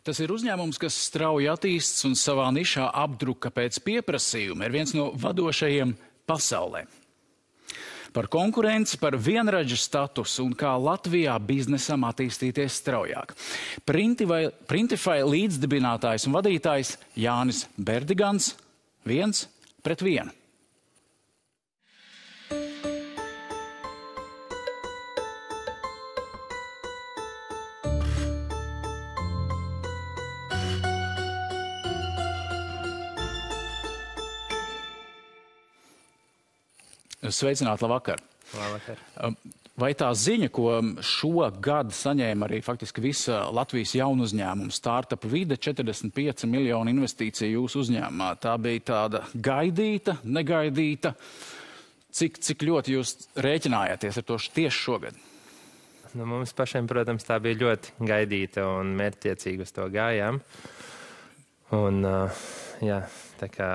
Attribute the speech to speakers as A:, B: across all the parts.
A: Tas ir uzņēmums, kas strauji attīsts un savā nišā apdruka pēc pieprasījuma, ir viens no vadošajiem pasaulē. Par konkurenci, par vienradža statusu un kā Latvijā biznesam attīstīties straujāk. Printify līdzdibinātājs un vadītājs Jānis Berdigans 1-1. Sveicināti, labvakar.
B: Labvakar.
A: Vai tā ziņa, ko šogad saņēma arī faktiski visa Latvijas jaunu uzņēmumu startup vide, 45 miljonu investīciju jūsu uzņēmumā, tā bija tāda gaidīta, negaidīta? Cik ļoti jūs rēķinājāties ar to tieši šogad?
B: Nu, mums pašiem, protams, tā bija ļoti gaidīta un mērķtiecīgi uz to gājām. Un, jā, tā kā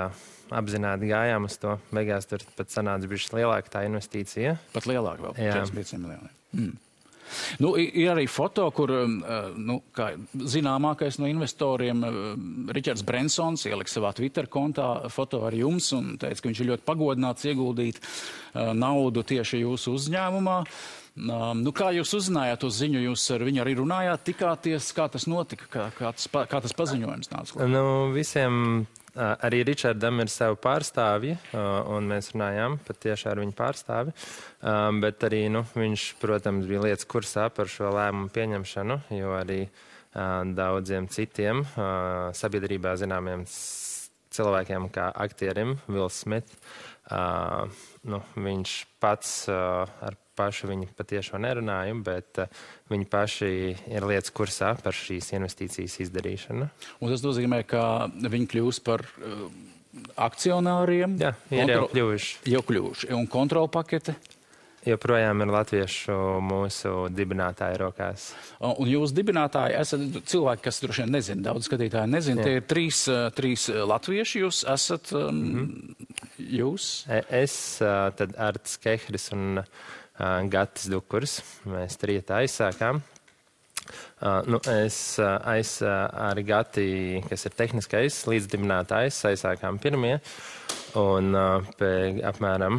B: apzināti gājām uz to. Beigās tur pat sanāca bišķi lielāka tā investīcija.
A: Pat lielāka vēl, 45 miljoni. Nu, ir arī foto, kur kā zināmākais no investoriem Ričards Brensons ielika savā Twitter kontā foto ar jums un teica, ka viņš ir ļoti pagodināts ieguldīt naudu tieši jūsu uzņēmumā. Nu, kā jūs uzzinājāt to ziņu, jūs ar viņu arī runājāt, tikāties, kā tas notika, kā tas paziņojums nāca klāt?
B: Nu, visiem arī Ričardam ir savu pārstāvji, un mēs runājām pat tieši ar viņu pārstāvi, bet arī, viņš, protams, bija lietas kursā par šo lēmumu pieņemšanu, jo arī daudziem citiem sabiedrībā zināmiem cilvēkiem kā aktierim, Wills Smith, viņš pats ar pašu viņi patiešo nerunāju, bet viņi paši ir lietas kursā par šīs investīcijas izdarīšanu.
A: Un tas nozīmē, ka viņi kļūs par akcionāriem?
B: Jā, ir jau kļuvuši.
A: Jau kļuvuši. Un kontrolpakete?
B: Joprojām ir latviešu mūsu dibinātāju rokās.
A: Un jūs dibinātāji esat cilvēki, kas droši vien nezina, daudz skatītāji nezina. Tie ir trīs latvieši, jūs esat jūs?
B: Es, tad Arts Kehris un Gatis Dukurs. Mēs trietā aizsākām. Es ar Gati, kas ir tehniskais līdzdibinātājs, aizsākām pirmie. Un apmēram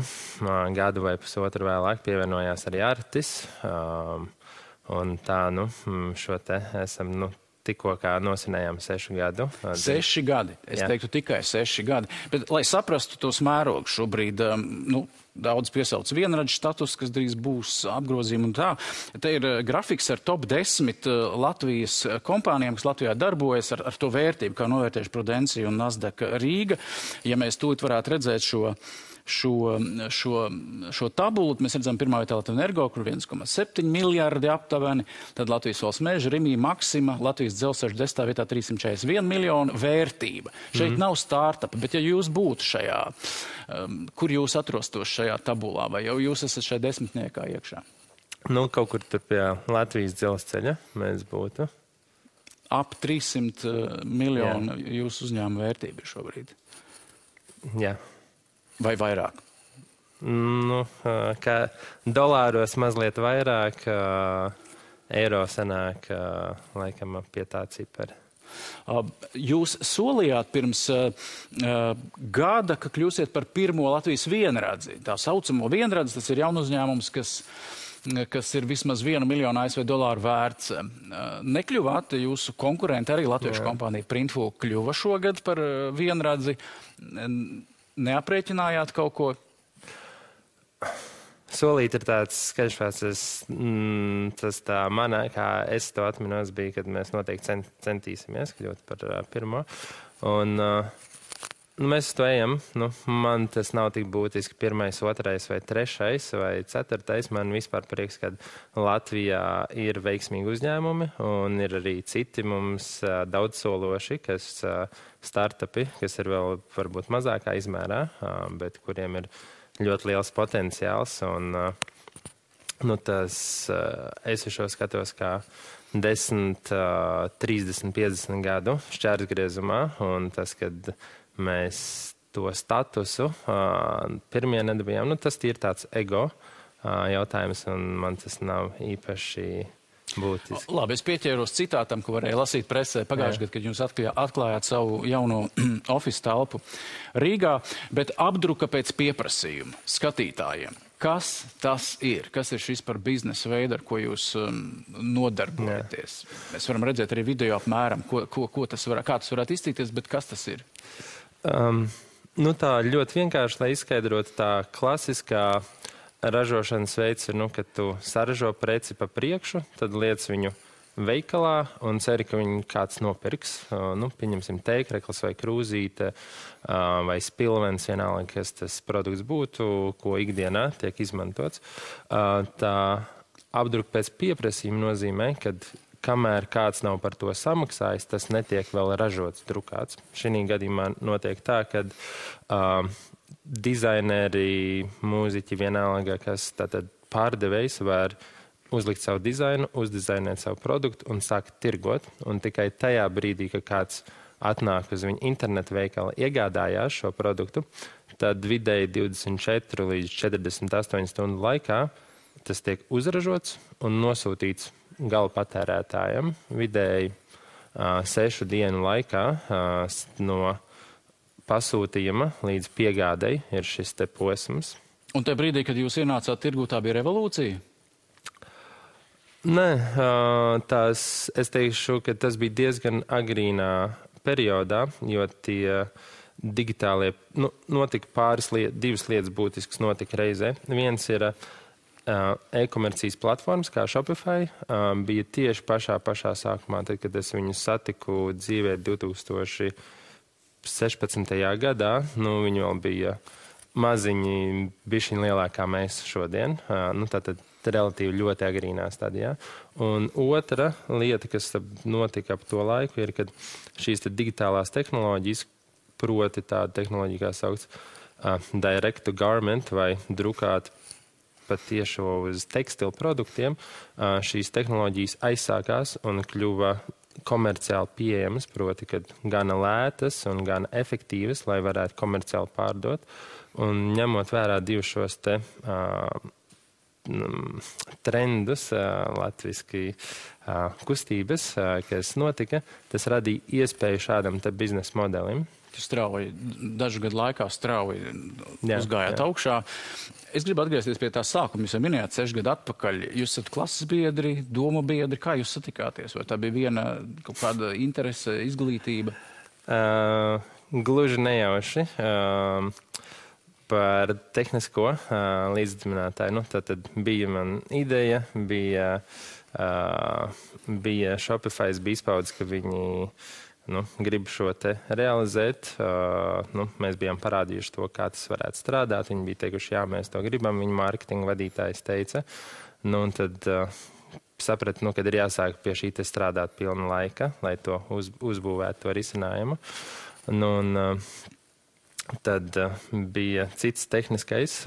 B: gadu vai pusotru vēlāk pievienojās arī Artis. Un tā, šo te esam, tikko kā nosinējām 6 gadu.
A: 6 gadi. Es teiktu tikai 6 gadi. Bet, lai saprastu tos mērogus šobrīd, daudz piesauc vienradžu status, kas drīz būs apgrozījumi un tā. Te ir grafiks ar top 10 Latvijas kompānijām, kas Latvijā darbojas ar to vērtību, kā novērtējuši Prudencija un Nasdaq Rīga. Ja mēs tūlīt varētu redzēt šo tabulu, mēs redzam pirmā vietā Latvijas Energo, kur 1,7 miljardi aptuveni, tad Latvijas Valsts meža, Rimī, Maksima, Latvijas dzelzceļa 10. vietā 341 miljonu vērtība. Šeit nav startupa, bet ja jūs būtu šajā, kur jūs atrostos šajā tabulā, vai jau jūs esat šajā desmitniekā iekšā?
B: Kaut kur tur pie Latvijas dzelzceļa mēs būtu.
A: Ap 300 miljonu jūsu uzņēmuma vērtība šobrīd.
B: Jā.
A: Vai vairāk?
B: Kā dolāros mazliet vairāk, eiro sanāk laikam pie tā cipara.
A: Jūs solījāt pirms gada, ka kļūsiet par pirmo Latvijas vienradzi. Tā saucamo vienradzi, tas ir jaunu uzņēmums, kas ir vismaz 1 miljonu ASV dolāru vērts. Nekļuvāt jūsu konkurenti, arī latviešu kompānija Printful kļuva šogad par vienradzi. Neaprēķinājāt kaut ko?
B: Solīt ir tāds skaļšvārds, tas tā manā, kā es to atminos, bija, kad mēs noteikti centīsimies kļūt par pirmo. Un mēs to ejam. Man tas nav tik būtiski 1., 2. vai 3. vai 4. Man vispār prieks, ka Latvijā ir veiksmīgi uzņēmumi un ir arī citi mums daudzsološi, kas startupi, kas ir vēl varbūt mazākā izmērā, bet kuriem ir ļoti liels potenciāls. Un, es šo skatos kā 10, 30, 50 gadu šķērsgriezumā, un tas, kad mēs to statusu pirmie nedabījām, tas ir tāds ego jautājums, un man tas nav īpaši būtiski.
A: Labi, es pieķēros citātam, ko varēja lasīt presē pagājušajā gadā, kad jūs atklājāt savu jauno office telpu Rīgā, bet apdruka pēc pieprasījuma skatītājiem. Kas tas ir? Kas ir šis par biznesa veidu, ar ko jūs nodarbojaties? Mēs varam redzēt arī video apmēram, kā tas varētu izcīties, bet kas tas ir?
B: Tā ļoti vienkārši, lai izskaidrotu, tā klasiskā ražošanas veids ir, kad tu saražo preci pa priekšu, tad liec viņu veikalā un ceri, ka viņu kāds nopirks. Pieņemsim teikreklis vai krūzīte vai spilvens, vienalga, kas tas produkts būtu, ko ikdienā tiek izmantots. Tā apdruka pēc pieprasījuma nozīmē, kad kamēr kāds nav par to samaksājis, tas netiek vēl ražots, drukāts. Šī gadījumā notiek tā, kad dizaineri, mūziķi, vienalga, kas tātad pārdevējs var uzlikt savu dizainu, uzdizainēt savu produktu un sākt tirgot. Un tikai tajā brīdī, kad kāds atnāk uz viņu internetu veikalu, iegādājās šo produktu, tad vidēji 24 līdz 48 stundu laikā tas tiek uzražots un nosūtīts gala patērētājiem. Vidēji 6 dienu laikā no pasūtījuma līdz piegādei ir šis te posms.
A: Un tajā brīdī, kad jūs ienācāt tirgū, tā bija revolūcija?
B: Nē, es teikšu, ka tas bija diezgan agrīnā periodā, jo tie digitālie, notika divas lietas būtiskas notika reizē. Viens ir e-komercijas platformas, kā Shopify, bija tieši pašā sākumā, tad, kad es viņu satiku dzīvē 2016. Gadā, viņi vēl bija maziņi, bišķiņ lielākā mēs šodien, tātad relatīvi ļoti agrīnā stadijā. Un otra lieta, kas notika ap to laiku, ir, kad šīs digitālās tehnoloģijas, proti tāda tehnoloģija, kā saukts direct to garment vai drukāt patiešo uz tekstilu produktiem, šīs tehnoloģijas aizsākās un kļuva komerciāli pieejamas, proti, kad gana lētas un gana efektīvas, lai varētu komerciāli pārdot. Un ņemot vērā divus šos te trendus, latviski kustības, kas notika, tas radīja iespēju šādam te biznesa modelim.
A: Dažu gadu laikā strauji uzgājāt augšā. Es gribu atgriezties pie tā sākuma. Jūs jau minējāt 6 gadu atpakaļ. Jūs esat klases biedri, domu biedri. Kā jūs satikāties? Vai tā bija viena kaut kāda interese, izglītība?
B: Gluži nejauši. Par tehnisko līdzdibinātāju. Tad bija man ideja, bija Shopify, bija izpaudzes, ka viņi grib šo te realizēt. Mēs bijām parādījuši to, kā tas varētu strādāt. Viņi bija teikuši, jā, mēs to gribam. Viņa mārketinga vadītājs teica. Un tad sapratu, kad ir jāsāk pie šī te strādāt pilna laika, lai to uzbūvētu to risinājumu. Tad bija cits tehniskais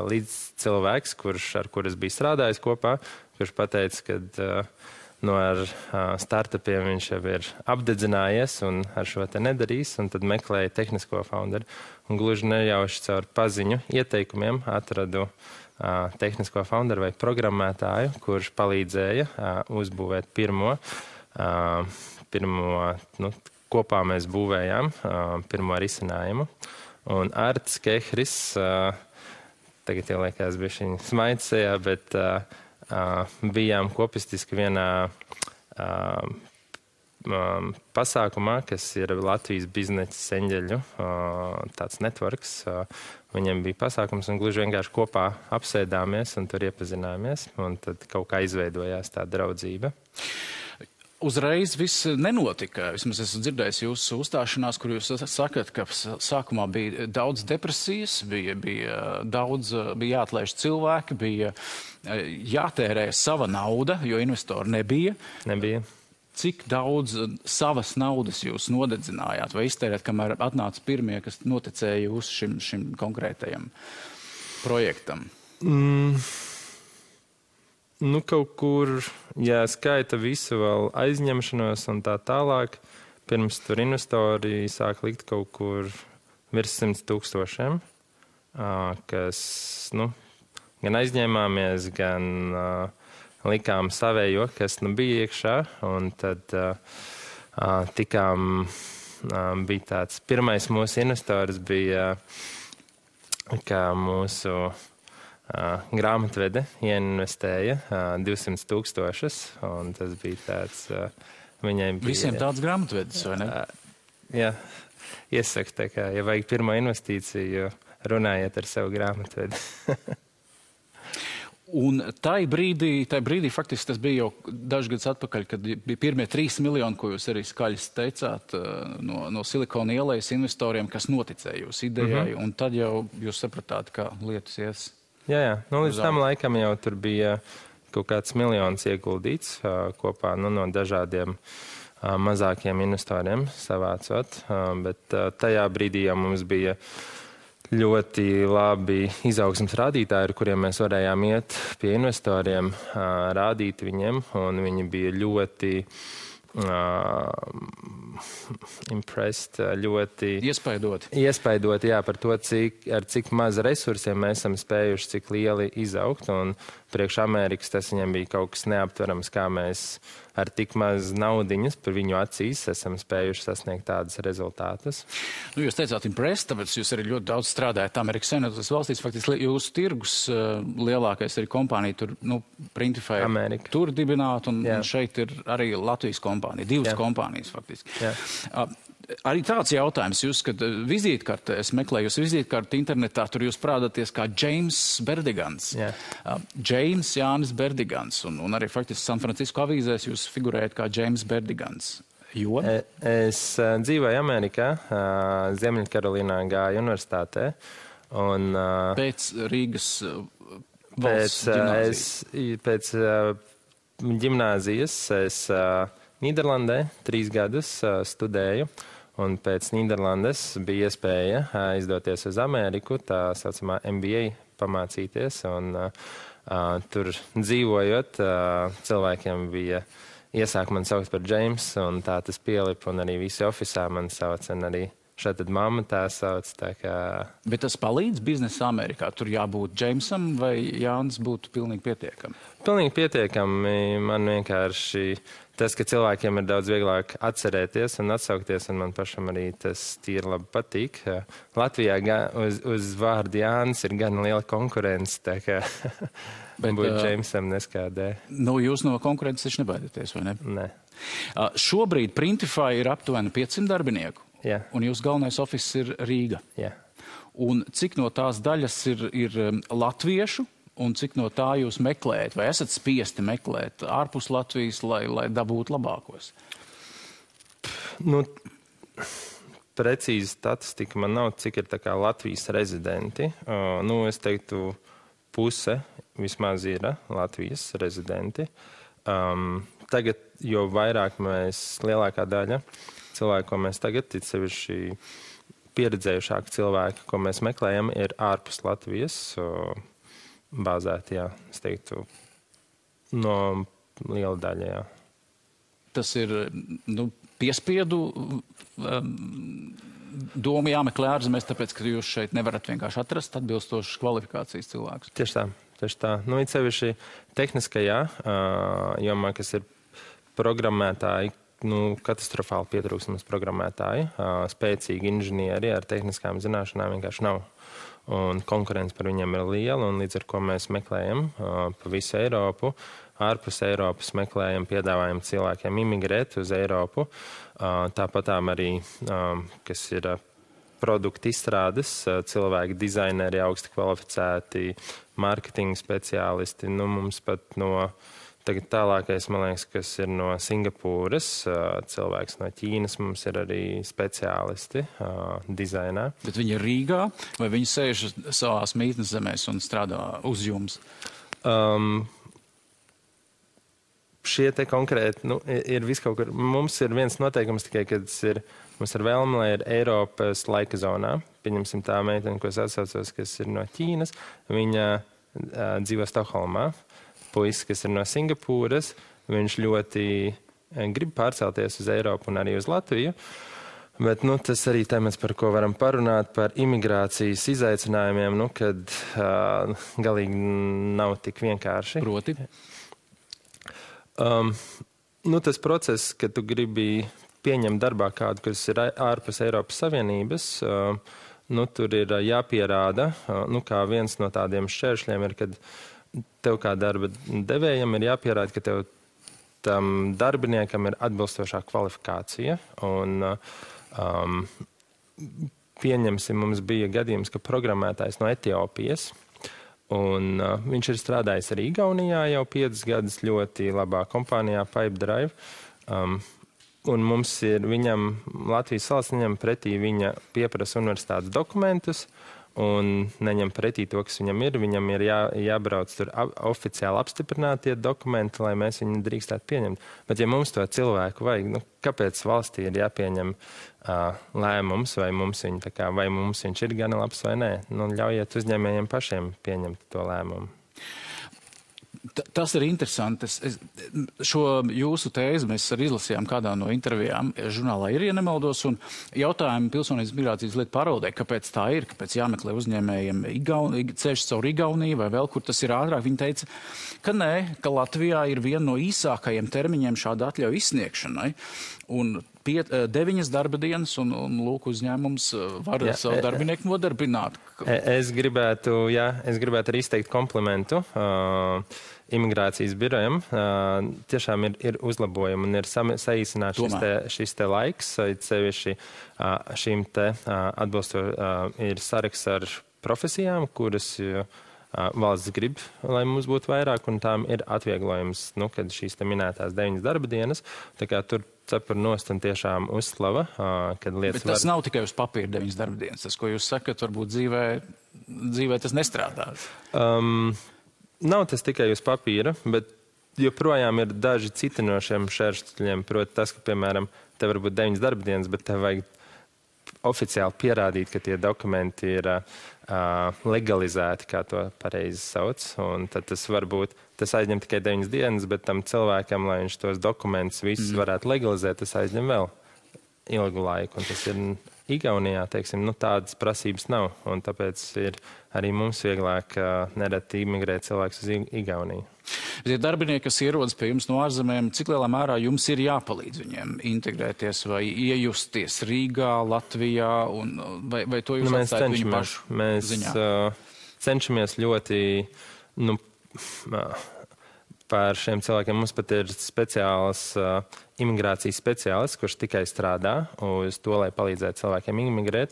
B: līdzcilvēks, ar kur es biju strādājis kopā, kurš pateica, ka ar startupiem viņš jau ir apdedzinājies un ar šo te nedarīs, un tad meklēja tehnisko founderu. Un gluži nejauši caur paziņu ieteikumiem atradu tehnisko founderu vai programmētāju, kurš palīdzēja uzbūvēt pirmo kopā mēs būvējām pirmo risinājumu. Un Arts Kehris, tagad jau liekas bišķiņ smaids sejā, bet bijām kopistiski vienā pasākumā, kas ir Latvijas biznesa eņģeļu, tāds networks. Viņiem bija pasākums un gluži vienkārši kopā apsēdāmies un tur iepazināmies. Un tad kaut kā izveidojās tā draudzība.
A: Uzreiz viss nenotika. Vismaz esmu dzirdējis jūsu uzstāšanās, kur jūs sakat, ka sākumā bija daudz depresijas, bija jāatlaiž cilvēki, bija jātērē sava nauda, jo investori nebija. Cik daudz savas naudas jūs nodedzinājāt vai iztērēt, kamēr atnāca pirmie, kas noticēja jūs šim konkrētajam projektam?
B: Kaut kur, ja skaita visu vēl aizņemšanos un tā tālāk, pirms tur investori sāk likt kaut kur virs 100 000, kas, gan aizņēmāmies, gan likām savējo, kas nu bija iekšā, un tad bija tāds pirmais mūsu investors bija, kā mūsu grāmatvede ieinvestēja 200,000, un tas bija tāds, viņai bija...
A: Visiem tāds grāmatvedis, vai ne?
B: Jā, iesaku tā kā, ja vajag pirmo investīciju, runājiet ar savu grāmatvedi.
A: Un tai brīdī faktiski tas bija jau dažus gadus atpakaļ, kad bija pirmie 3 miljoni, ko jūs arī skaļi teicāt, no Silikona ielas investoriem, kas noticēja jūsu idejai, un tad jau jūs sapratāt, kā lietas ies.
B: Jā. Nu, līdz tam laikam jau tur bija kaut kāds miljons ieguldīts kopā no dažādiem mazākiem investoriem savācot, bet tajā brīdī jau mums bija ļoti labi izaugsmes rādītāji, ar kuriem mēs varējām iet pie investoriem, rādīt viņiem, un viņi bija ļoti impressed, ļoti iespaidoti, jā, par to, ar cik maz resursiem mēs esam spējuši, cik lieli izaugt, un priekš Amerikas tas viņam bija kaut kas neaptverams, kā mēs ar tik maz naudiņas par viņu acīs esam spējuši sasniegt tādas rezultātus.
A: Nu, jūs teicāt impressed, tāpēc jūs arī ļoti daudz strādājat Amerikas Savienotās valstīs. Faktiski jūsu tirgus lielākais arī kompānija tur, Printify,
B: Amerika.
A: Tur dibināt, un šeit ir arī Latvijas kompānija, 2 kompānijas faktiski. Arī tāds jautājums, jūs, kad vizītkartē, es meklēju jūs vizītkarti internetā, tur jūs prādāties kā James Berdigans. James Jānis Berdigans, un arī faktiski San Francisco avīzēs jūs figurējat kā James Berdigans. Jo?
B: Es dzīvoju Amerikā, Ziemeļkarolīnā gāju universitātē. Un,
A: pēc Rīgas valsts ģimnāzijas?
B: Pēc ģimnāzijas es Nīderlandē 3 gadus studēju. Un pēc Nīderlandes bija iespēja aizdoties uz Ameriku, tā saucamā MBA pamācīties. Un tur dzīvojot, cilvēkiem bija iesāk man saukt par James, un tā tas pielipa, un arī visi ofisā man sauc, un arī šeit tad mamma tā sauc. Tā kā...
A: Bet tas palīdz biznesa Amerikā? Tur jābūt Jamesam vai Jānis būtu pilnīgi pietiekami?
B: Pilnīgi pietiekami. Man vienkārši tas, ka cilvēkiem ir daudz vieglāk atcerēties un atsaukties, un man pašam arī tas tīri labi patīk. Latvijā uz vārdu Jānis ir gan liela konkurence, tā kā būt Jamesam neskādē.
A: Nu, jūs no konkurences taču nebaidieties, vai ne?
B: Nē.
A: Šobrīd Printify ir aptuveni 500 darbinieku.
B: Jā.
A: Un jūsu galvenais ofis ir Rīga.
B: Jā.
A: Un cik no tās daļas ir latviešu, un cik no tā jūs meklējat? Vai esat spiesti meklēt ārpus Latvijas, lai dabūtu labākos?
B: Nu, precīzi statistika man nav, cik ir tā kā Latvijas rezidenti. Es teiktu, puse vismaz ir Latvijas rezidenti. Tagad, jo vairāk lielākā daļa cilvēku, ko mēs tagad, it sevišķi pieredzējušāki cilvēki, ko mēs meklējam, ir ārpus Latvijas bāzēti, jā, es teiktu, no liela daļa, jā.
A: Tas ir, piespiedu doma jāmeklē ārzemēs, tāpēc, ka jūs šeit nevarat vienkārši atrast atbilstošas kvalifikācijas cilvēkus.
B: Tieši tā. It sevišķi tehniskajā jomā, kas ir programmētāji, katastrofāli pietrūkstamas programmētāji, spēcīgi inženieri ar tehniskām zināšanām vienkārši nav. Un konkurence par viņiem ir liela, un līdz ar ko mēs meklējam pa visu Eiropu, ārpus Eiropas meklējam, piedāvājam cilvēkiem imigrēt uz Eiropu. Tāpatām arī, kas ir produktu izstrādes, cilvēki, dizaineri, augsti kvalificēti, marketinga speciālisti. Mums pat tagad tālākais, man liekas, kas ir no Singapūras, cilvēks no Ķīnas, mums ir arī speciālisti dizainā.
A: Bet viņi ir Rīgā, vai viņi sēž savās mītnes zemēs un strādā uz jums?
B: Šie te konkrēti, ir viskaut kur. Mums ir viens noteikums tikai, kad mums ir vēlme, lai ir Eiropas laika zonā. Pieņemsim tā meitene, ko es atsaucos, kas ir no Ķīnas. Viņa dzīvo Stokholmā. Puisis, kas ir no Singapūras, viņš ļoti grib pārcelties uz Eiropu un arī uz Latviju. Bet tas arī temats, par ko varam parunāt, par imigrācijas izaicinājumiem, kad galīgi nav tik vienkārši.
A: Proti?
B: Tas process, ka tu gribi pieņemt darbā kādu, kas ir ārpus Eiropas Savienības, tur ir jāpierāda, kā viens no tādiem šķēršļiem ir, kad tev kā darba devējam ir jāpierāda, ka tev tam darbiniekam ir atbilstošā kvalifikācija. Un pieņemsim, mums bija gadījums, ka programmētājs no Etiopijas, un viņš ir strādājis arī Igaunijā jau 5 gadus ļoti labā kompānijā Pipedrive. Un mums ir Latvijas valsts neņem pretī viņa pieprasa universitātes dokumentus, un neņem pretī to, kas viņam ir jābrauc tur oficiāli apstiprinātie dokumenti, lai mēs viņu drīkstētu pieņemt. Bet ja mums to cilvēku vajag, kāpēc valstī ir jāpieņem lēmums, vai mums viņš ir gana labs vai nē? Ļaujiet uzņēmējiem pašiem pieņemt to lēmumu.
A: Tas ir interesanti. Šo jūsu tēzi mēs arī izlasījām kādā no intervijām žurnālā Ir, ja nemaldos, un jautājumu Pilsonības migrācijas lietu pārvaldē, kāpēc tā ir, kāpēc jāmeklē uzņēmējiem ceļš caur Igauniju vai vēl, kur tas ir ātrāk. Viņi teica, ka nē, ka Latvijā ir viena no īsākajiem termiņiem šāda atļauja izsniegšanai, un 9 darba dienas, un lūk, uzņēmums var savu darbinieku nodarbināt.
B: Es gribētu arī izteikt komplimentu imigrācijas birojam. Tiešām ir uzlabojumi un ir saīsināts šis te laiks, sevišķi šīm te ir saraksts ar profesijām, kuras valsts grib, lai mums būtu vairāk, un tām ir atvieglojums, kad šīs te minētās 9 darba dienas. Tā kā tur cepur nost un tiešām uzslava, kad lietas
A: Bet tas nav tikai uz papīra 9 darba dienas. Tas, ko jūs sakat, varbūt dzīvē tas nestrādās.
B: Nav tas tikai uz papīra, bet joprojām ir daži citi no šiem šķēršļiem. Proti tas, ka, piemēram, tev varbūt 9 darba dienas, bet tev vajag oficiāli pierādīt, ka tie dokumenti ir legalizēti, kā to pareizi sauc. Un tad tas aizņem tikai 9 dienas, bet tam cilvēkam, lai viņš tos dokumentus visus varētu legalizēt, tas aizņem vēl ilgu laiku. Un tas ir Igaunijā, teiksim, tādas prasības nav. Un tāpēc ir arī mums vieglāk nereti imigrēt cilvēkus uz Igauniju.
A: Tie darbinieki, kas ierodas pie jums no ārzemēm, cik lielā mērā jums ir jāpalīdz viņiem integrēties vai iejusties Rīgā, Latvijā, vai to jūs atstājat viņu pašu ziņā?
B: Mēs cenšamies ļoti, par šiem cilvēkiem. Mums pat ir speciāls imigrācijas speciālists, kurš tikai strādā uz to, lai palīdzētu cilvēkiem imigrēt.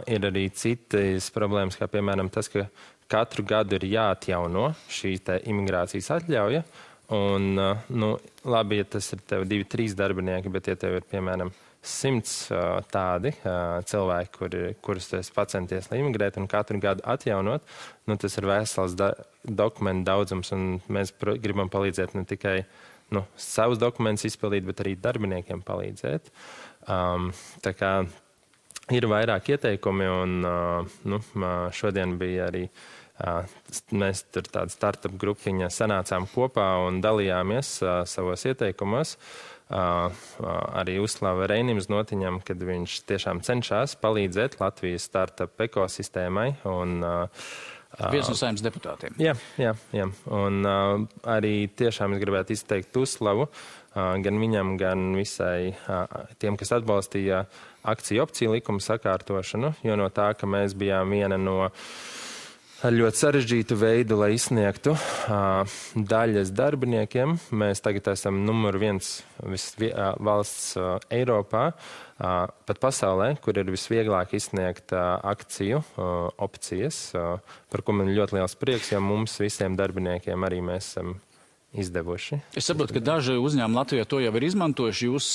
B: Ir arī citas problēmas, kā piemēram tas, ka katru gadu ir jāatjauno šī imigrācijas atļauja. Un, labi, ja tas ir tev 2-3 darbinieki, bet ja tev ir, piemēram, 100 tādi cilvēki, kurus tu esi pacenties, lai imigrētu un katru gadu atjaunot, tas ir vesels dokumentu daudzums, un mēs gribam palīdzēt ne tikai savus dokumentus izpildīt, bet arī darbiniekiem palīdzēt. Tā kā ir vairāk ieteikumi, un šodien bija arī mēs tur tāda startup grupiņa sanācām kopā un dalījāmies savos ieteikumos. Arī uzslava Reinim Znotiņam, kad viņš tiešām cenšas palīdzēt Latvijas startup ekosistēmai.
A: Viens no Saeimas deputātiem.
B: Jā. Un arī tiešām es gribētu izteikt uzslavu gan viņam, gan visai tiem, kas atbalstīja akciju opciju likuma sakārtošanu, jo no tā, ka mēs bijām viena no ar ļoti sarežģītu veidu, lai izsniegtu daļas darbiniekiem. Mēs tagad esam numur 1 valsts Eiropā, pat pasaulē, kur ir visvieglāk izsniegt akciju opcijas, par ko man ļoti liels prieks, jo mums visiem darbiniekiem arī mēs esam izdevuši.
A: Es saprotu, ka daži uzņēmumi Latvijā to jau ir izmantojuši. Jūs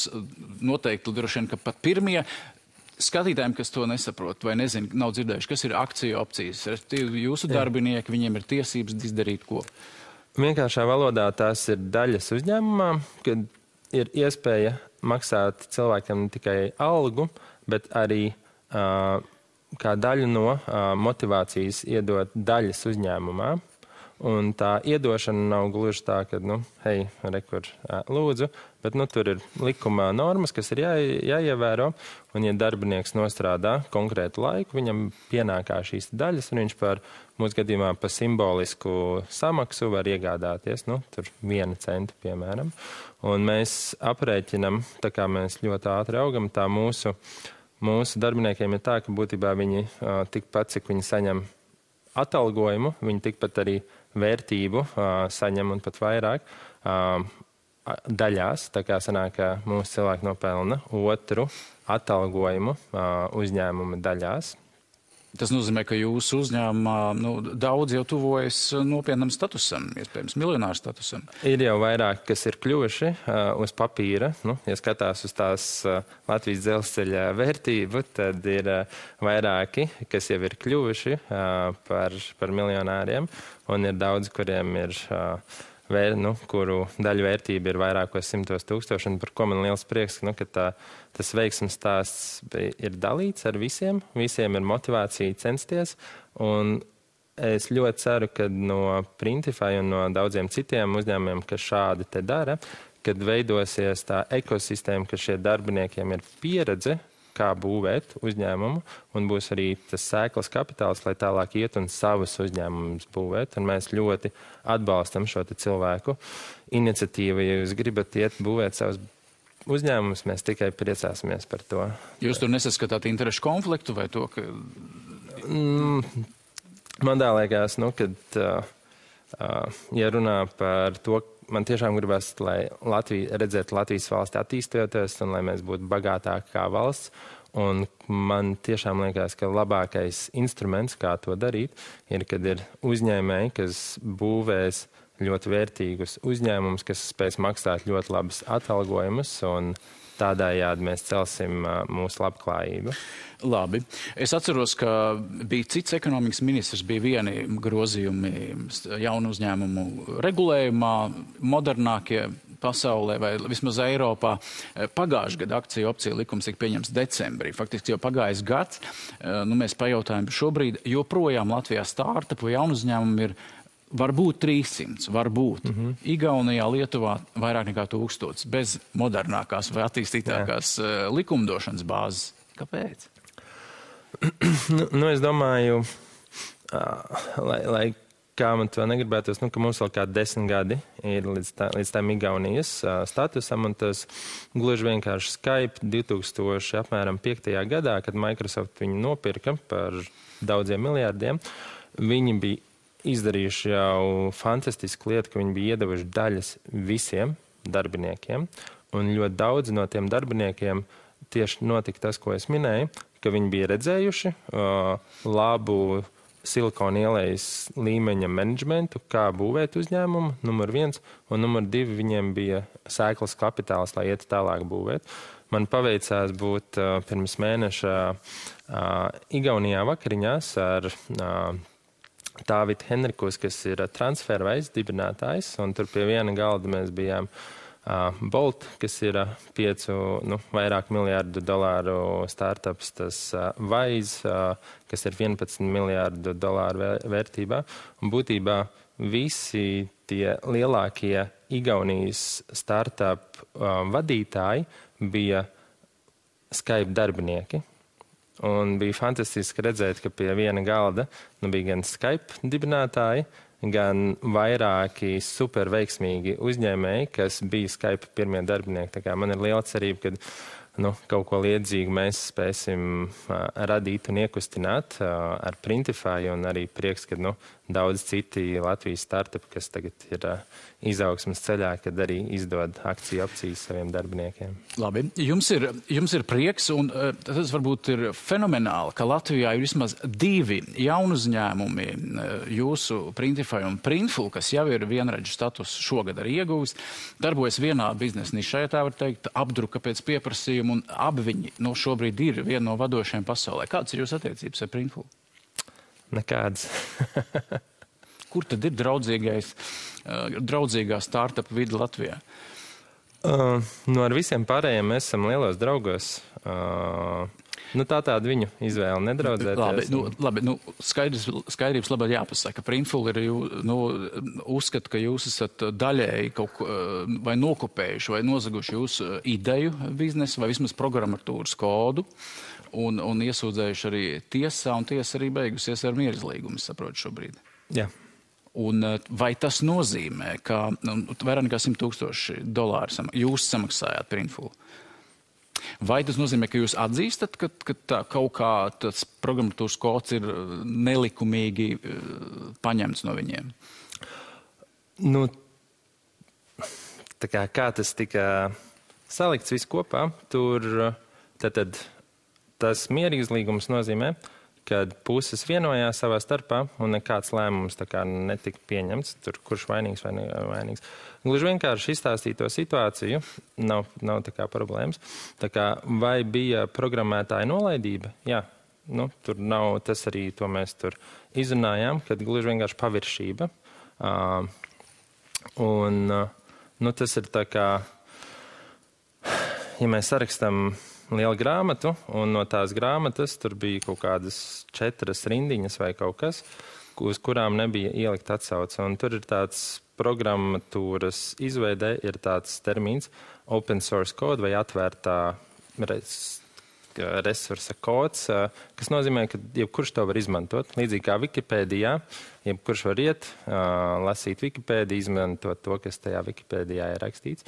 A: noteikti droši vien, ka pat pirmie skatītājiem, kas to nesaprot vai nezinu, nav dzirdējuši, kas ir akciju opcijas. Jūsu darbinieki, viņiem ir tiesības izdarīt ko?
B: Vienkāršā valodā tās ir daļas uzņēmumā, kad ir iespēja maksāt cilvēkam ne tikai algu, bet arī kā daļu no motivācijas iedot daļas uzņēmumā. Un tā iedošana nav gluži tā, ka, hei, rekur, lūdzu, bet, tur ir likumā normas, kas ir jāievēro, un, ja darbinieks nostrādā konkrētu laiku, viņam pienākā šīs daļas, un viņš par, mūsu gadījumā, pa simbolisku samaksu var iegādāties, tur 1 centu, piemēram. Un mēs aprēķinam, tā kā mēs ļoti ātri augam, tā mūsu darbiniekiem ir tā, ka būtībā viņi tikpat, cik viņi saņem atalgojumu, viņi tikpat arī vērtību saņem un pat vairāk daļās. Tā kā sanāk, ka mūsu cilvēki nopelna 2 atalgojumu uzņēmuma daļās.
A: Tas nozīmē, ka jūsu uzņēmumā daudz jau tuvojas nopietnam statusam, iespējams, miljonāru statusam.
B: Ir jau vairāk, kas ir kļuvuši uz papīra. Ja skatās uz tās Latvijas dzelzceļa vērtību, tad ir vairāki, kas jau ir kļuvuši par miljonāriem, un ir daudz, kuriem ir kuru daļu vērtība ir vairākos 100 000, un par ko man liels prieks, ka tas veiksmes stāsts ir dalīts ar visiem. Visiem ir motivācija censties, un es ļoti ceru, ka no Printify un no daudziem citiem uzņēmumiem, kas šādi te dara, kad veidosies tā ekosistēma, ka šie darbiniekiem ir pieredze, kā būvēt uzņēmumu, un būs arī tas sēklas kapitāls, lai tālāk iet un savus uzņēmumus būvēt. Un mēs ļoti atbalstam šo cilvēku iniciatīvu. Ja jūs gribat iet būvēt savus uzņēmumus, mēs tikai priecāsimies par to.
A: Jūs tur nesaskatāt interešu konfliktu vai to, ka...
B: Man tā liekas, kad ja runā par to, man tiešām gribas, lai redzēt Latvijas valsti attīstoties un lai mēs būtu bagātāki kā valsts. Un man tiešām liekas, ka labākais instruments, kā to darīt, ir, kad ir uzņēmēji, kas būvēs ļoti vērtīgus uzņēmumus, kas spēs maksāt ļoti labus atalgojumus, un tādējādi mēs celsim mūsu labklājību.
A: Labi. Es atceros, ka bija cits ekonomikas ministrs, bija vieni grozījumi jaunu uzņēmumu regulējumā, modernākie pasaulē vai vismaz Eiropā. Pagājušajā gadā akciju opciju likums tika pieņemts decembrī. Faktiski jau pagājis gads. Mēs pajautājam šobrīd, joprojām Latvijā startupu jaunu uzņēmumu ir varbūt 300, varbūt. Igaunijā, Lietuvā vairāk nekā 1000, bez modernākās vai attīstītākās likumdošanas bāzes. Kāpēc?
B: Es domāju, lai kā man to negribētos, ka mums vēl kā 10 gadi ir līdz tam Igaunijas statusam, un tas gluži vienkārši Skype 2005. gadā, kad Microsoft viņu nopirka par daudziem miljārdiem, viņi bija izdarījuši jau fantastisku lietu, ka viņi bija iedevuši daļas visiem darbiniekiem, un ļoti daudz no tiem darbiniekiem tieši notika tas, ko es minēju, ka viņi bija redzējuši labu Silikona ielas līmeņa menedžmentu, kā būvēt uzņēmumu, numur 1, un numur 2 viņiem bija sēklas kapitāls, lai iet tālāk būvēt. Man paveicās būt pirms mēneša Igaunijā vakariņās ar Tāvitu Henrikus, kas ir Transferwise dibinātājs, un tur pie viena galda mēs bijām Bolt, kas ir vairāk $1 miljārdu startups, tas Wise, kas ir $11 miljārdu vērtībā. Un būtībā visi tie lielākie Igaunijas startup vadītāji bija Skype darbinieki. Un bija fantastiski redzēt, ka pie viena galda bija gan Skype dibinātāji, gan vairāki super veiksmīgi uzņēmēji, kas bija Skype pirmie darbinieki. Tā kā man ir liela cerība, ka kaut ko līdzīgu mēs spēsim radīt un iekustināt ar Printify, un arī prieks, ka daudz citi Latvijas startupi, kas tagad ir izaugsmas ceļā, kad arī izdod akciju opcijas saviem darbiniekiem.
A: Labi. Jums ir prieks, un tas varbūt ir fenomenāli, ka Latvijā ir vismaz 2 jaunu uzņēmumi, jūsu Printify un Printful, kas jau ir vienredžu status šogad arī ieguvis, darbojas vienā biznesa nišā, tā var teikt, apdruka pēc pieprasījuma, un abi viņi šobrīd ir viena no vadošajiem pasaulē. Kādas ir jūsu attiecības ar Printful?
B: Nekādas.
A: Kur tad ir draudzīgā startup vide Latvijā?
B: Ar visiem pārējiem mēs esam lielos draugos. Tāda viņu izvēle nedraudzēties.
A: Labi, skaidrības labāk jāpasaka. Printful ir, uzskata, ka jūs esat daļēji kaut ko vai nokopējuši vai nozaguši jūsu ideju biznesu vai vismaz programmatūras kodu un iesūdzējuši arī tiesā, un tiesa arī beigusies ar mierizlīgumu, saprotu šobrīd.
B: Jā.
A: Un vai tas nozīmē, ka vairāk nekā $100,000 jūs samaksājāt Printful? Vai tas nozīmē, ka jūs atzīstat, ka tā kaut kā tas programmatūras kods ir nelikumīgi paņemts no viņiem?
B: Kā tas tika salikts viss kopā, tur tad tas mierīgslīgums nozīmē, kad puses vienojās savā starpā un nekāds lēmums netika pieņemts, tur kurš vainīgs vai nevainīgs. Gluži vienkārši izstāstīt to situāciju, nav tā kā problēmas. Vai bija programmētāja nolaidība? Jā, tur nav, tas arī to mēs tur izrunājām, kad gluži vienkārši paviršība. Tas ir tā kā, ja mēs sarakstam lielu grāmatu, un no tās grāmatas tur bija kaut kādas 4 rindiņas vai kaut kas, uz kurām nebija ielikt atsauce. Un tur ir tāds programmatūras izveidē, ir tāds termins open source code vai atvērtā resursa kods, kas nozīmē, ka jebkurš to var izmantot. Līdzīgi kā Wikipēdijā, jebkurš var iet, lasīt Wikipēdiju, izmantot to, kas tajā Wikipēdijā ir rakstīts.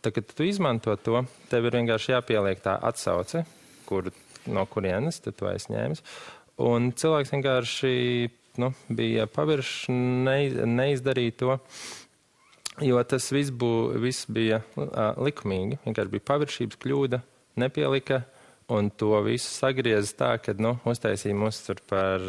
B: Kad tu izmanto to, tev ir vienkārši jāpieliek tā atsauce, no kurienes tu to esi ņēmis. Un cilvēks vienkārši bija paviršs, neizdarīja to, jo tas viss bija likumīgi. Vienkārši bija paviršības kļūda, nepielika, un to visu sagrieza tā, kad uztaisīja mūs tur par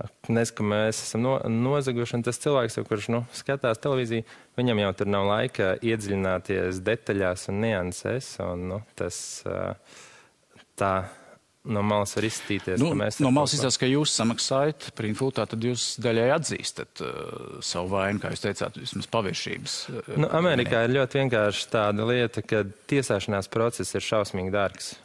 B: ka mēs esam nozaguši, un tas cilvēks, kurš skatās televīziju, viņam jau tur nav laika iedziļināties detaļās un niansēs, un tas tā no malas var izstīties.
A: No malas izstāst, ka jūs samaksājat Printful, tad jūs daļai atzīstat savu vainu, kā jūs teicāt, vismaz paviršības.
B: Amerikā ir ļoti vienkārši tāda lieta, ka tiesāšanās process ir šausmīgi dārgs.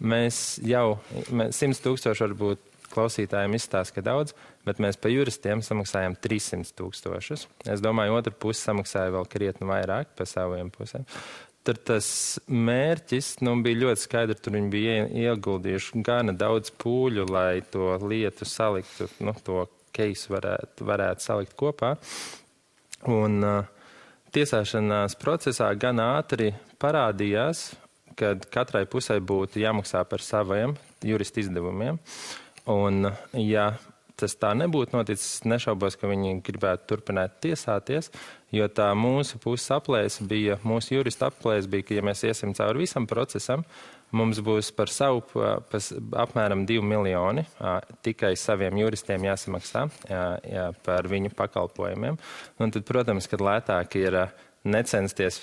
B: Mēs 100,000 varbūt klausītājiem izstāsta, ka daudz, bet mēs pa juristiem samaksājam 300,000. Es domāju, otra puse samaksāja vēl krietni vairāk pa saviem pusēm. Tur tas mērķis bija ļoti skaidrs, tur viņi bija ieguldījuši gana daudz pūļu, lai to lietu saliktu, to keisu varētu salikt kopā. Un tiesāšanās procesā gan ātri parādījās, kad katrai pusē būtu jāmaksā par saviem juristu izdevumiem. Un, ja tas tā nebūtu noticis, nešaubos, ka viņi gribētu turpināt tiesāties, jo tā mūsu puses aplēse bija, mūsu jurista aplēse bija, ka ja mēs iesim cauri visam procesam, mums būs par savu apmēram 2 miljoni tikai saviem juristiem jāsamaksā par viņu pakalpojumiem. Un tad, protams, kad lētāk ir necensties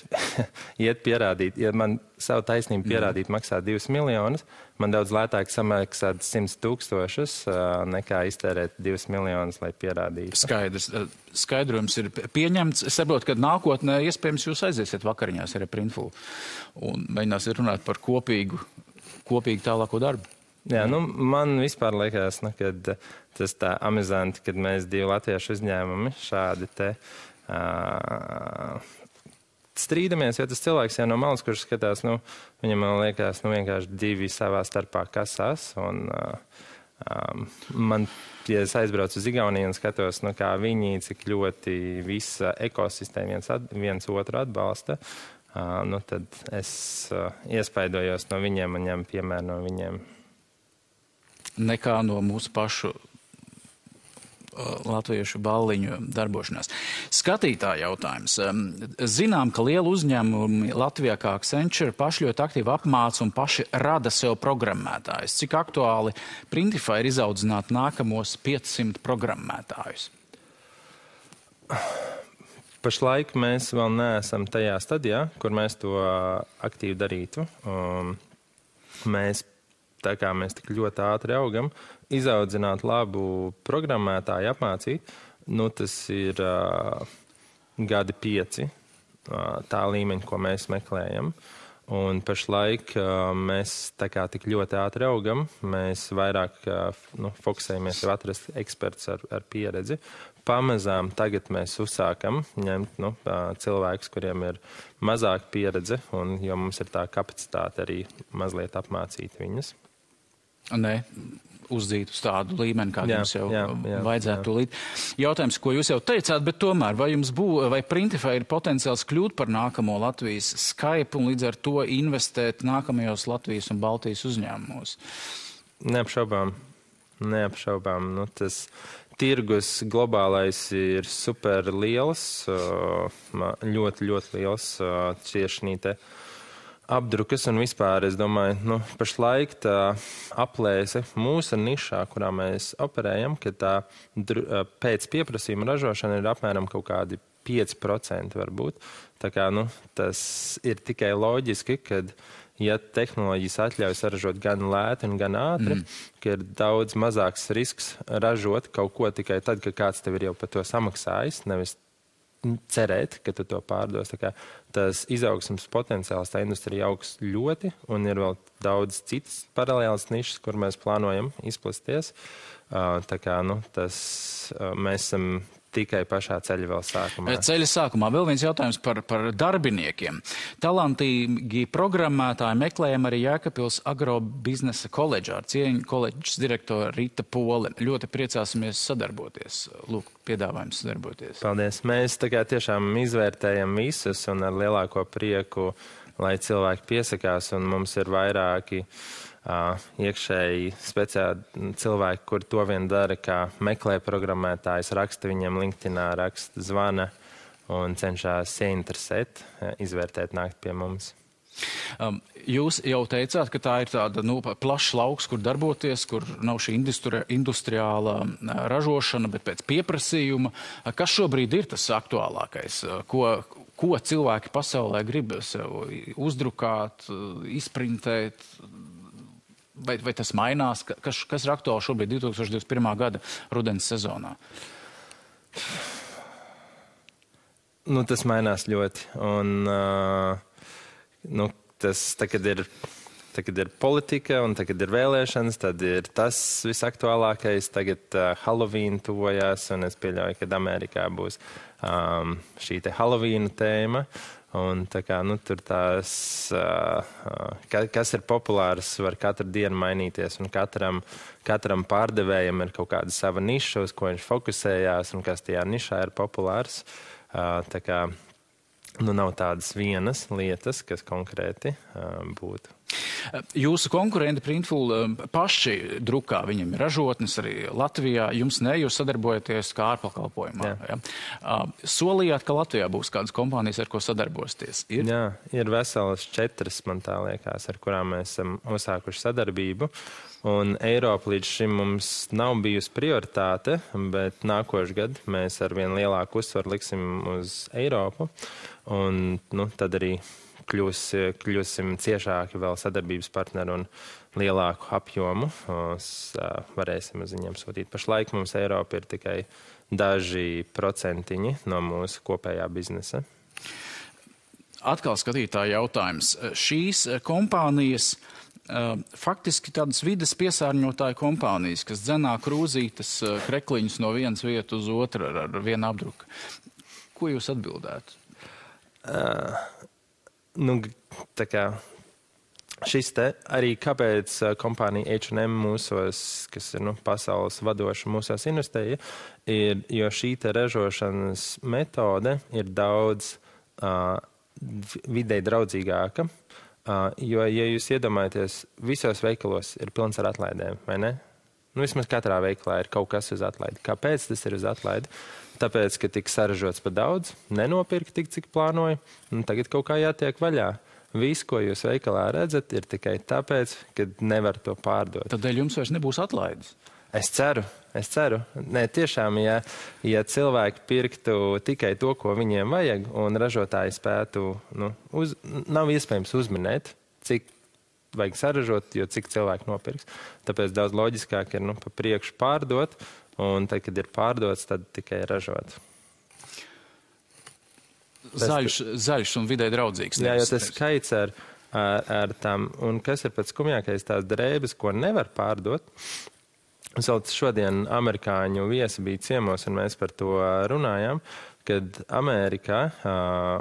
B: iet pierādīt, ja man savu taisnību pierādīt maksā 2 miljonus, man daudz lētāk samaksāt 100,000 nekā iztērēt 2 miljonus, lai pierādītu.
A: Skaidrs. Skaidrojums ir pieņemts. Es saprotu, ka nākotnē iespējams jūs aiziesiet vakariņās ar Printful un mēģināsiet runāt par kopīgu tālāko darbu.
B: Jā, man vispār liekas, kad tas tā amizanti, kad mēs 2 latviešu uzņēmumi šādi te strīdamies, jo tas cilvēks jau no malas, kurš skatās, viņam liekas, vienkārši 2 savā starpā kasās, un man, ja es aizbraucu uz Igauniju un skatos, kā viņi, cik ļoti visa ekosistēma viens otru atbalsta, tad es iespaidojos no viņiem un ņem piemēru no viņiem.
A: Nekā no mūsu pašu latviešu balliņu darbošanās. Skatītāja jautājums. Zinām, ka lielu uzņēmumi Latvijā kā Accenture paši ļoti aktīvi apmāca un paši rada sev programmētājus. Cik aktuāli Printify ir izaudzināt nākamos 500 programmētājus?
B: Pašlaik mēs vēl neesam tajā stadijā, kur mēs to aktīvi darītu. Mēs tik ļoti ātri augam, izaudzināt labu programmētāju, apmācīt, tas ir 5 gadi, tā līmeņa, ko mēs meklējam. Un pašlaik mēs tā kā tik ļoti ātri augam, mēs vairāk fokusējamies jau atrast eksperts ar pieredzi. Pamazām tagad mēs uzsākam ņemt cilvēkus, kuriem ir mazāk pieredze, un jo mums ir tā kapacitāte arī mazliet apmācīt viņus.
A: Nē, uzdzīt uz tādu līmeni, kā jums jau vajadzētu tūlīt. Jautājums, ko jūs jau teicāt, bet tomēr, vai Printify ir potenciāls kļūt par nākamo Latvijas Skype un līdz ar to investēt nākamajos Latvijas un Baltijas uzņēmumos?
B: Neapšaubām. Tas tirgus globālais ir super liels, ļoti, ļoti liels tieši apdrukas un vispār, es domāju, pašlaik tā aplēse mūsu nišā, kurā mēs operējam, ka tā pēc pieprasījuma ražošana ir apmēram kaut kādi 5% varbūt. Tā kā, tas ir tikai loģiski, kad, ja tehnoloģijas atļauj saražot gan lēti un gan ātri, ka ir daudz mazāks risks ražot kaut ko tikai tad, ka kāds tev ir jau par to samaksājis, nevis cerēt, ka tu to pārdos. Tā kā tas izaugsmes potenciāls tā industrija augs ļoti, un ir vēl daudz citas paralēlas nišas, kur mēs plānojam izplasties. Tā kā, mēs esam tikai pašā ceļa vēl sākumā.
A: Ceļa sākumā vēl viens jautājums par darbiniekiem. Talantīgi programmētāji meklējam arī Jēkabpils agrobiznesa koledžā ar cieņu koledžas direktoru Rita Pole. Ļoti priecāsimies sadarboties. Lūk, piedāvājums sadarboties.
B: Paldies. Mēs tiešām izvērtējam visus un ar lielāko prieku, lai cilvēki piesakās, un mums ir vairāki iekšēji speciāli cilvēki, kur to vien dara, kā meklē programmētājs, raksta viņiem LinkedInā, raksta, zvana un cenšas ieinteresēt, izvērtēt, nākt pie mums.
A: Jūs jau teicāt, ka tā ir tāda plašs lauks, kur darboties, kur nav šī industriālā ražošana, bet pēc pieprasījuma. Kas šobrīd ir tas aktuālākais? Ko cilvēki pasaulē grib sev uzdrukāt, izprintēt? Vai tas mainās? Kas ir aktuāli šobrīd 2021. gada rudens sezonā?
B: Tas mainās ļoti. Un, tas tagad ir politika un tagad ir vēlēšanas, tad ir tas visaktuālākais. Tagad Halloween tuvojās, un es pieļauju, ka Amerikā būs šī te Halloween tēma. Un tā kā, tur tās, kas ir populārs, var katru dienu mainīties, un katram pārdevējam ir kaut kāda sava niša, uz ko viņš fokusējās, un kas tajā nišā ir populārs. Tā kā, nav tādas vienas lietas, kas konkrēti būtu.
A: Jūsu konkurenti Printful paši drukā, viņiem ir ražotnes arī Latvijā, jums ne, jūs sadarbojaties kā ārpakalpojumā. Ja? Solījāt, ka Latvijā būs kādas kompānijas, ar ko sadarbosties?
B: Jā, ir veselas 4, man tā liekas, ar kurām mēs esam uzsākuši sadarbību. Un Eiropa līdz šim mums nav bijusi prioritāte, bet nākošu gadu mēs ar vien lielāku uzsvaru liksim uz Eiropu. Un tad arī kļūsim ciešāki vēl sadarbības partneri un lielāku apjomu. Varēsim uz viņiem sūtīt. Pašlaik mums Eiropa ir tikai daži procentiņi no mūsu kopējā biznesa.
A: Atkal skatītāja jautājums. Šīs kompānijas faktiski tādas vides piesārņotāju kompānijas, kas dzenā krūzītes krekliņus no vienas vietas uz otru ar vienu apdruku. Ko jūs atbildētu?
B: Tā kā šis te arī kāpēc kompānija H&M mūsos, kas ir pasaules vadoša mūsos investēja, ir, jo šī te ražošanas metode ir daudz videi draudzīgāka, jo, ja jūs iedomājaties, visos veikalos ir pilns ar atlaidēm, vai ne? Vismaz katrā veikalā ir kaut kas uz atlaidi. Kāpēc tas ir uz atlaidi? Tāpēc, ka tika saražots par daudz, nenopirka tik, cik plānoja, un tagad kaut kā jātiek vaļā. Viss, ko jūs veikalā redzat, ir tikai tāpēc, ka nevar to pārdot.
A: Tādēļ jums vairs nebūs atlaides?
B: Es ceru. Nē, tiešām, ja cilvēki pirktu tikai to, ko viņiem vajag, un ražotāji spētu, nav iespējams uzminēt, cik vajag saražot, jo cik cilvēki nopirks. Tāpēc daudz loģiskāk ir pa priekšu pārdot, un tad, kad ir pārdots, tad tikai ražot.
A: Zaļš un vidē draudzīgs.
B: Jā, jo tas skaits ar ar tām. Un kas ir pats skumjākais, tās drēbes, ko nevar pārdot. Šodien amerikāņu viesi bija ciemos, un mēs par to runājām, kad Amerikā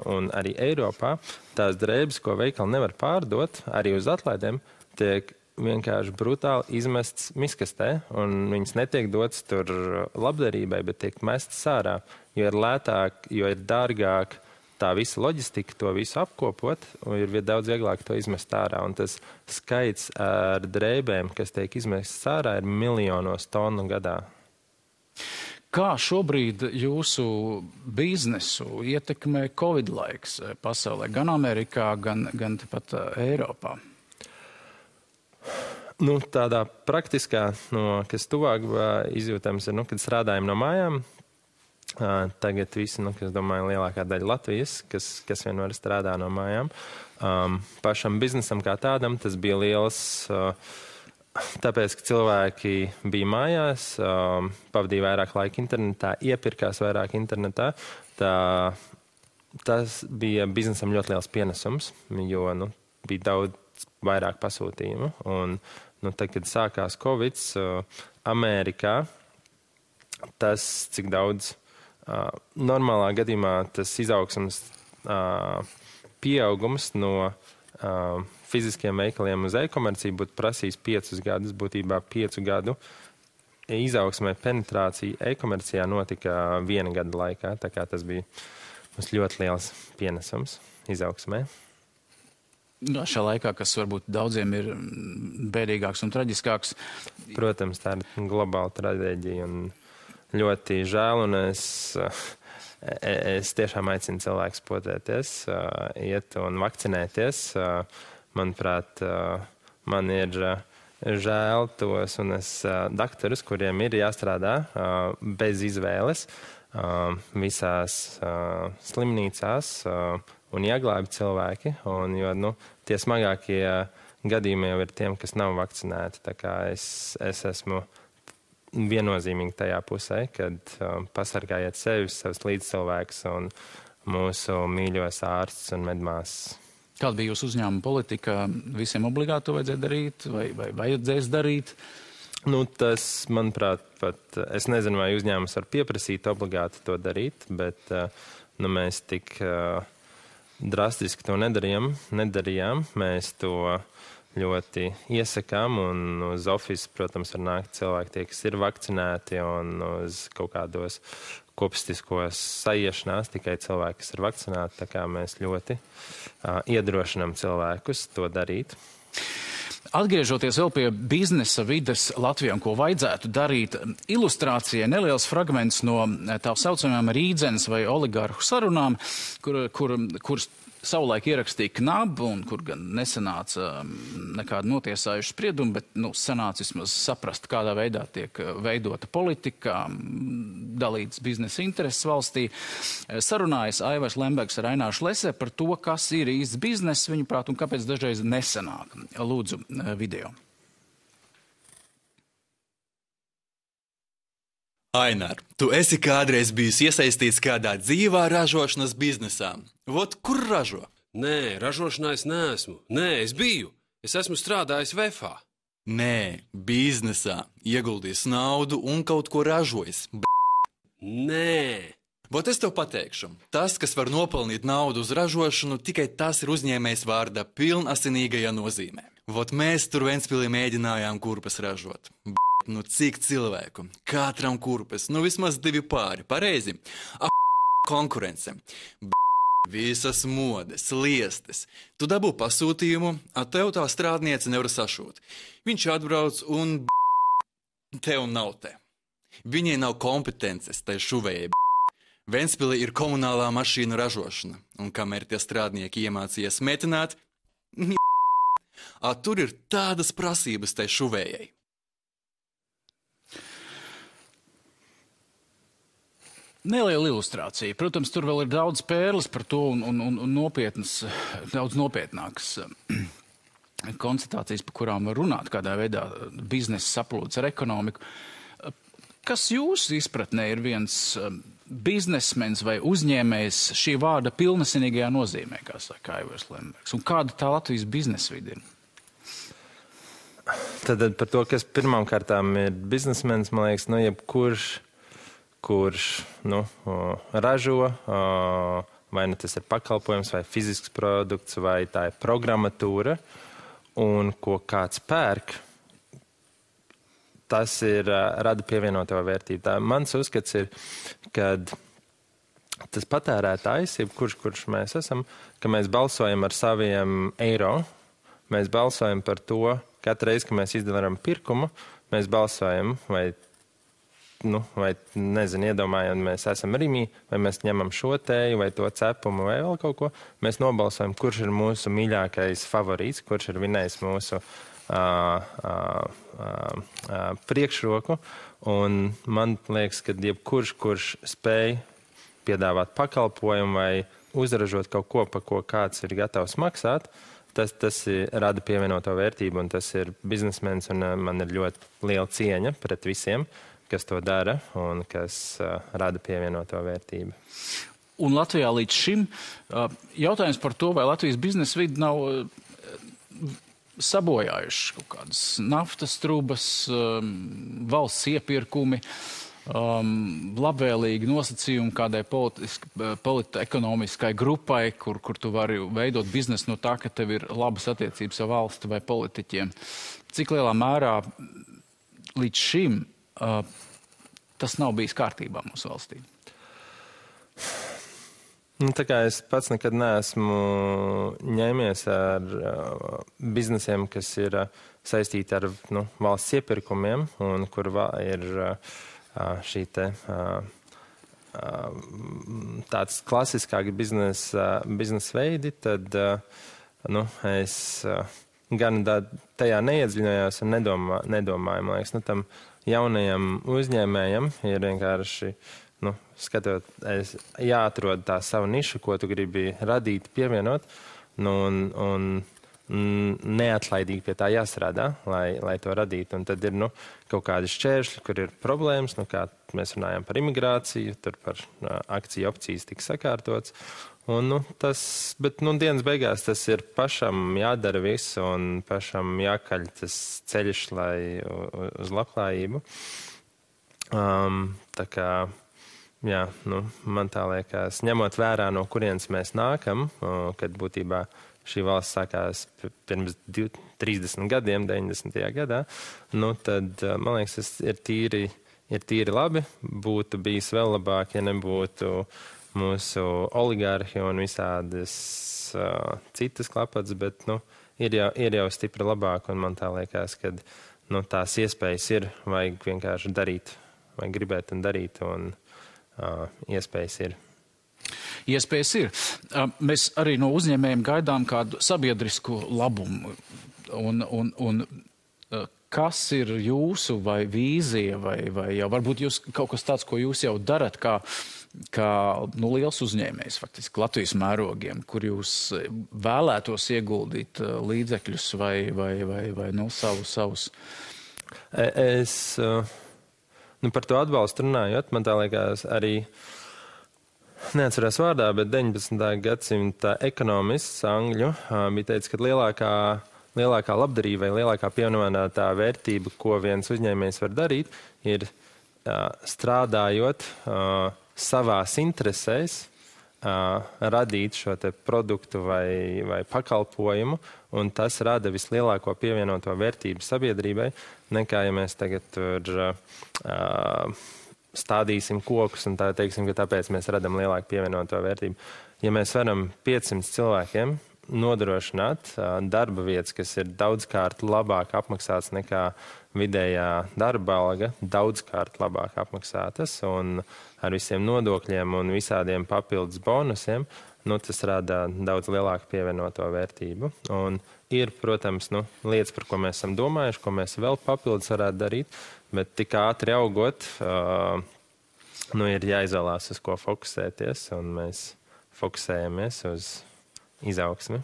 B: un arī Eiropā tās drēbes, ko veikali nevar pārdot, arī uz atlaidēm, tiek vienkārši brutāli izmests miskastē, un viņas netiek dotas tur labdarībai, bet tiek mestas ārā, jo ir lētāk, jo ir dārgāk tā visa loģistika, to visu apkopot, un ir daudz vieglāk to izmest ārā. Un tas skaits ar drēbēm, kas tiek izmestas ārā, ir miljonos tonu gadā.
A: Kā šobrīd jūsu biznesu ietekmē Covid laiks pasaulē, gan Amerikā, gan pat Eiropā?
B: Nu, tādā praktiskā, kas tuvāk izjūtams ir, kad strādājam no mājām. Tagad visi, es domāju, lielākā daļa Latvijas, kas vienmēr strādā no mājām. Pašam biznesam kā tādam tas bija liels, tāpēc, ka cilvēki bija mājās, pavadīja vairāk laika internetā, iepirkās vairāk internetā. Tas bija biznesam ļoti liels pienesums, jo bija daudz vairāk pasūtījumu. Un, tad, kad sākās Covid, Amerikā, tas, cik daudz normālā gadījumā tas izaugsmas pieaugums no fiziskiem veikaliem uz e-komerciju būtu prasījis 5 gadus, būtībā 5 gadu izaugsmē penetrācija e-komercijā notika 1 gada laikā, tā kā tas bija mums ļoti liels pienesums izaugsmē.
A: Šā laikā, kas varbūt daudziem ir bēdīgāks un traģiskāks.
B: Protams, tā ir globāla traģēdija un ļoti žēl, un es tiešām aicinu cilvēkus potēties, iet un vakcinēties. Manuprāt, man ir žēl tos un daktarus, kuriem ir jāstrādā bez izvēles visās slimnīcās un jāglābi cilvēki, jo tie smagākie gadījumi jau ir tiem, kas nav vakcinēti. Tā kā es esmu viennozīmīgi tajā pusē, kad pasargājiet sevi, savus līdzcilvēkus un mūsu mīļos ārstus un medmāsas.
A: Kāda bija jūsu uzņēmuma politika? Visiem obligāti to vajadzēja darīt vai vajadzēs darīt?
B: Tas, manuprāt, pat es nezinu, vai uzņēmums var pieprasīt obligāti to darīt, bet mēs tik drastiski to nedarījām. Mēs to ļoti iesakām, un uz ofisu, protams, var nākt cilvēki tie, kas ir vakcinēti, un uz kaut kādos kopistiskos saiešanās tikai cilvēki, kas ir vakcinēti, tā kā mēs ļoti iedrošinām cilvēkus to darīt.
A: Atgriežoties vēl pie biznesa vides Latvijā, ko vajadzētu darīt, ilustrācijai neliels fragments no tā saucamajām rīdzenes vai oligarhu sarunām, kuras savulaik ierakstīja KNAB, un kur gan nesanāca nekāda notiesājuša sprieduma, bet sanāca vismaz saprast, kādā veidā tiek veidota politika, dalītas biznesa intereses valstī. Sarunājas Aivars Lembergs ar Aināru Šlese par to, kas ir īsts bizness, viņuprāt, un kāpēc dažreiz nesanāk. Lūdzu, video.
C: Ainar, tu esi kādreiz bijis iesaistīts kādā dzīvā ražošanas biznesā. Vot kur ražo?
D: Nē, ražošanā es neesmu. Nē, es biju. Es esmu strādājis VFā.
C: Nē, biznesā. Ieguldījis naudu un kaut ko ražojis.
D: Nē.
C: Vot es tev pateikšu. Tas, kas var nopelnīt naudu uz ražošanu, tikai tas ir uzņēmējs vārda pilnasinīgajā nozīmē. Vot mēs tur Ventspilī mēģinājām kurpes ražot. Cik cilvēku? Katram kurpes. Vismaz 2 pāri. Pareizi. Konkurence. Visas modes, liestes. Tu dabū pasūtījumu, tev tā strādniece nevar sašūt. Viņš atbrauc un tev nav te. Viņai nav kompetences, tai šuvējai. Ventspilī ir komunālā mašīnu ražošana, un kamēr tie strādnieki iemācījies metināt, tur ir tādas prasības tai šuvējai.
A: Neliela ilustrācija. Protams, tur vēl ir daudz pērles par to un nopietnas, daudz nopietnākas konstatācijas, par kurām var runāt, kādā veidā biznesa saplūdes ar ekonomiku. Kas jūsu izpratnē ir viens biznesmenis vai uzņēmējs šī vārda pilnesinīgajā nozīmē, kā saka Aivars Lembergs? Un kāda tā Latvijas biznesvide ir?
B: Tad par to, kas pirmām kārtām ir biznesmenis, man liekas, kurš ražo, vai tas ir pakalpojums, vai fizisks produkts, vai tā ir programmatūra, un ko kāds pērk, tas ir rada pievienoto vērtību. Tā mans uzskats ir, kad tas patērētājs, kurš mēs esam, ka mēs balsojam ar saviem eiro, mēs balsojam par to, katru reizi, kad mēs izdarām pirkumu, mēs balsojam, vai iedomājam, mēs esam Rimī, vai mēs ņemam šo tēju, vai to cepumu, vai vēl kaut ko. Mēs nobalsojam, kurš ir mūsu mīļākais favorīts, kurš ir vinējis mūsu priekšroku. Un man liekas, ka kurš spēj piedāvāt pakalpojumu vai uzražot kaut ko, pa ko kāds ir gatavs maksāt, tas rada pievienoto vērtību, un tas ir biznesmenis, un man ir ļoti liela cieņa pret visiem, kas to dara un kas rada pievienoto vērtību.
A: Un Latvijā līdz šim jautājums par to, vai Latvijas biznesa vidi nav sabojājuši kaut kādas naftas trubas, valsts iepirkumi, labvēlīgi nosacījumi kādai ekonomiskai grupai, kur tu vari veidot biznesu no tā, ka tev ir labas attiecības ar valsti vai politiķiem. Cik lielā mērā līdz šim tas nav bijis kārtībā mūsu valstī?
B: Tā kā es pats nekad neesmu ņēmies ar biznesiem, kas ir saistīti ar valsts iepirkumiem, un kur ir šī tāds klasiskāk biznesa veidi, tad es gan tajā neiedziļinājos un nedomāju. Man liekas, tam jaunajam uzņēmējam ir vienkārši, jāatrod tā savu nišu, ko tu gribi radīt, pievienot, un neatlaidīgi pie tā jāstrādā, lai to radītu. Un tad ir kaut kādi šķēršļi, kur ir problēmas, kā mēs runājam par imigrāciju, tur par akciju opcijas tika sakārtots. Bet dienas beigās tas ir pašam jādara viss un pašam jākaļ tas ceļš uz labklājību. Tā kā, man tā liekas, ņemot vērā, no kurienes mēs nākam, kad būtībā šī valsts sākās pirms 30 gadiem, 90. gadā, tad, man liekas, tas ir tīri labi. Būtu bijis vēl labāk, ja nebūtu mūsu oligārhi un visādas citas klapats, bet, ir jau stipri labāk, un man tā liekas, ka, tās iespējas ir, vajag vienkārši darīt, vai gribēt un darīt, un iespējas ir.
A: Iespējas ir. Mēs arī no uzņēmējiem gaidām kādu sabiedrisku labumu. Un kas ir jūsu vai vīzija, vai jau varbūt jūs kaut kas tāds, ko jūs jau darat, kā liels uzņēmējs, faktiski Latvijas mērogiem, kur jūs vēlētos ieguldīt līdzekļus vai savus?
B: Es par to atbalstu runājot, man tā liekas arī, neatceros vārdā, bet 19. gadsimta ekonomists angļu bija teicis, ka lielākā labdarība vai lielākā pievienotā vērtība, ko viens uzņēmējs var darīt, ir strādājot savās interesēs, radīt šo te produktu vai pakalpojumu, un tas rada vislielāko pievienoto vērtību sabiedrībai, nekā ja mēs tagad tur stādīsim kokus un tā teiksim, ka tāpēc mēs radam lielāku pievienoto vērtību. Ja mēs varam 500 cilvēkiem nodrošināt darba vietas, kas ir daudzkārt labāk apmaksātas nekā vidējā darba alga, daudzkārt labāk apmaksātas un ar visiem nodokļiem un visādiem papildus bonusiem, tas rada daudz lielāku pievienoto vērtību. Un ir, protams, lietas, par ko mēs esam domājuši, ko mēs vēl papildus varētu darīt, bet tik ātri augot, ir jāizvēlās, uz ko fokusēties, un mēs fokusējamies uz izaugsmi.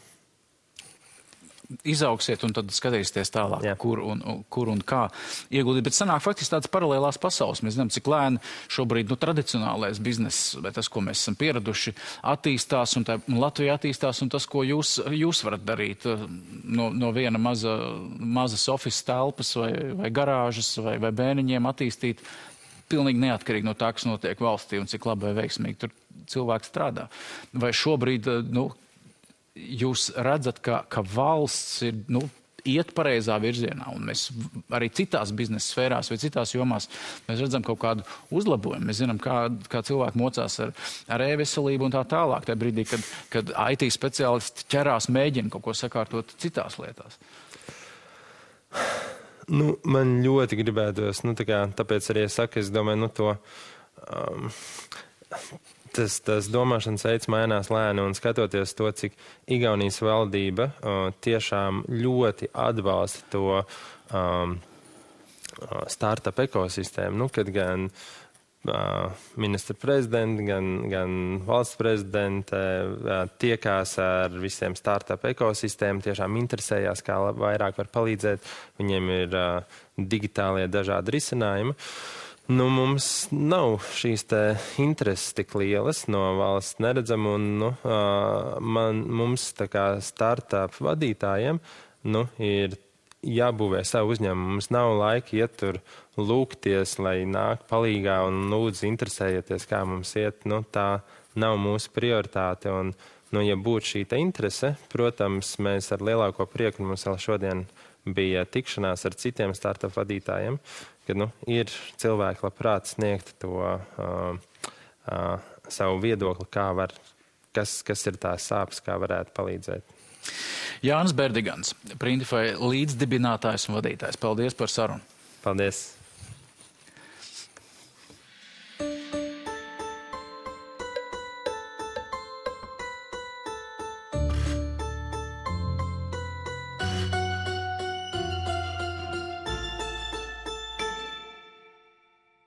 A: izaugsiet un tad skatīsieties tālāk, kur un kā ieguldīt. Bet sanāk faktiski tādas paralēlās pasaules. Mēs zinām, cik lēni šobrīd tradicionālais bizness, vai tas, ko mēs esam pieraduši, attīstās, un Latvija attīstās, un tas, ko jūs varat darīt no viena mazas office telpas vai garāžas vai bēniņiem attīstīt pilnīgi neatkarīgi no tā, kas notiek valstī un cik labi vai veiksmīgi tur cilvēks strādā. Vai šobrīd, jūs redzat, ka valsts ir, iet pareizā virzienā, un mēs arī citās biznesa sfērās vai citās jomās mēs redzam kaut kādu uzlabojumu. Mēs zinām, kā cilvēki mocās ar e-veselību un tā tālāk, tajā brīdī, kad IT speciālisti ķerās, mēģina kaut ko sakārtot citās lietās.
B: Man ļoti gribētos, tāpēc arī es saku, es domāju, tas domāšanas veids mainās lēni, un skatoties to, cik Igaunijas valdība tiešām ļoti atbalsta to startup ekosistēmu, kad gan ministra prezidenti, gan valsts prezidente tiekās ar visiem startup ekosistēmu, tiešām interesējās, kā vairāk var palīdzēt. Viņiem ir digitālie dažādi risinājumi. Mums nav šīs intereses tik lielas, no valsts neredzam, un mums tā kā startup vadītājiem ir jābūvē savu uzņēmumu. Mums nav laika iet tur lūgties, lai nāk palīgā un lūdzu interesējieties, kā mums iet. Tā nav mūsu prioritāte. Un, ja būtu šī interese, protams, mēs ar lielāko prieku, mums vēl šodien bija tikšanās ar citiem startup vadītājiem, kad ir cilvēki labprāt sniegt to savu viedokli, kas ir tās sāpes, kā varētu palīdzēt.
A: Jānis Berdigans, Printify līdzdibinātājs un vadītājs. Paldies par sarunu.
B: Paldies.